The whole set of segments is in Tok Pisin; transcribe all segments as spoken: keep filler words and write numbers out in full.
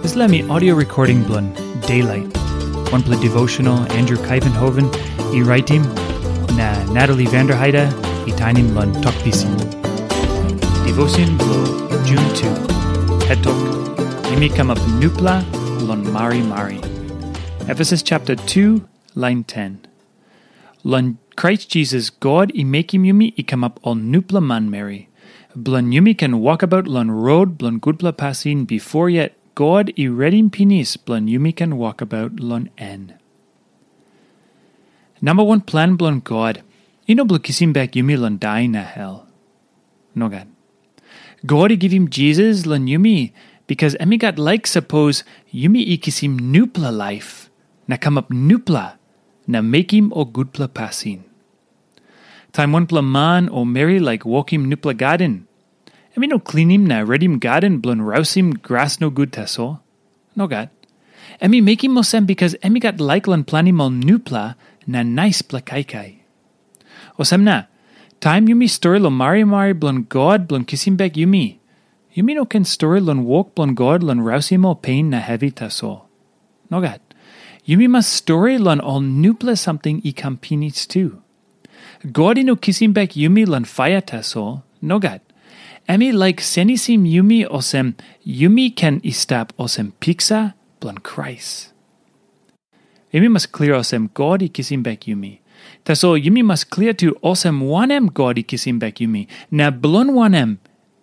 Dispela mi audio recording bilong Daylight, wanpela devotional Andrew Kaivenhoven i raitim, na Natalie Vanderheide i tainim long Tok Pisin. Devotion bilong June two. Het tok, yumi kamap nupela long marimari. Efesus chapter two, line ten. Long Krais Jisas God i mekim yumi i kamap ol nupela manmeri, bilong yumi ken wokabaut long rot bilong gutpela pasin bifor yet God i redim pinis bilong yumi ken wokabaut long en. Namba wan plan bilong God i no bilong kisim bek yumi long dai na hel. Nogat. God i givim Jisas long yumi, bikas em i gat laik sapos yumi i kisim nupela laip na kamap nupela na mekim ol gutpela pasin. Taim wanpela man o meri laik wokim nupela gaden, em i no klinim na redim gaden bilong rausim gras nogut tasol. Nogat. Em i mekim olsem bikas em i gat laik long planim ol nupela na naispela kaikai. Olsem na, taim yumi stori long marimari bilong God bilong kisim bek yumi, yumi no ken stori long wok bilong God long rausim ol pen na hevi tasol. Nogat. Yumi mas stori long ol nupela samting i kam pinis tu. God i no kisim bek yumi long paia tasol. Nogat. Em i laik senisim yumi olsem yumi ken i stap olsem piksa bilong Krais. Yumi mas klia olsem God i kisim bek yumi. Tasol yumi mas klia tu olsem wanem God i kisim bek yumi, na bilong wanem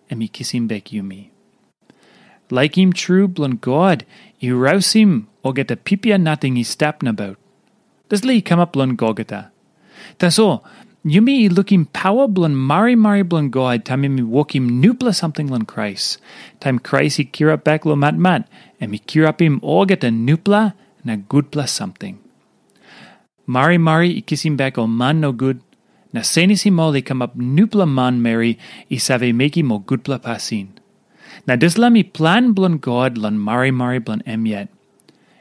em i kisim bek yumi. Laikim tru bilong God i rausim olgeta pipia nating i stap nabaut. Dispela i kamap long Golgota. Tasol, yumi i lukim pawa bilong marimari bilong God taim em i wokim nupela samting long Krais. Taim Krais i kirap bek long matmat, em i kirapim olgeta nupela na gutpela samting. Marimari i kisim bek ol man nogut, na senisim ol i kamap nupela manmeri i save mekim ol gutpela pasin. Na dispela mi plan bilong God long marimari bilong em yet.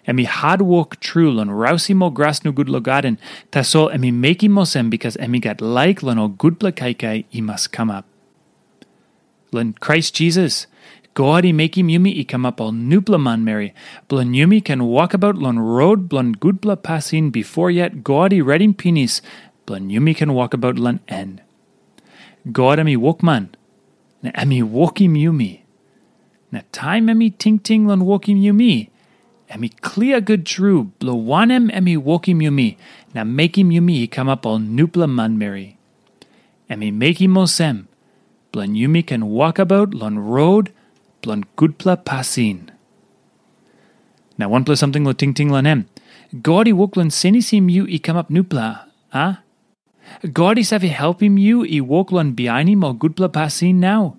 Em i hatwok tru long rausim ol gras nogut long gaden, tasol em i mekim olsem bikas em i gat laik long ol gutpela kaikai i mas kamap. Long Krais Jisas, God i mekim yumi i kamap ol nupela manmeri, bilong yumi ken wokabaut long rot bilong gutpela pasin bifor yet God i redim pinis, bilong yumi ken wokabaut long en. God em i wokman, na em i wokim yumi. Na taim em i tingting long wokim yumi, em i klia gut tru bilong wanem em i wokim yumi na mekim yumi i kamap ol nupela manmeri. Em i mekim olsem, bilong yumi ken wokabaut long rot bilong gutpela pasin. Na wanpela samting long tingting long em. God i wok long senisim yu i kamap nupela, a? God i save helpim yu i wok long bihainim ol gutpela pasin nau.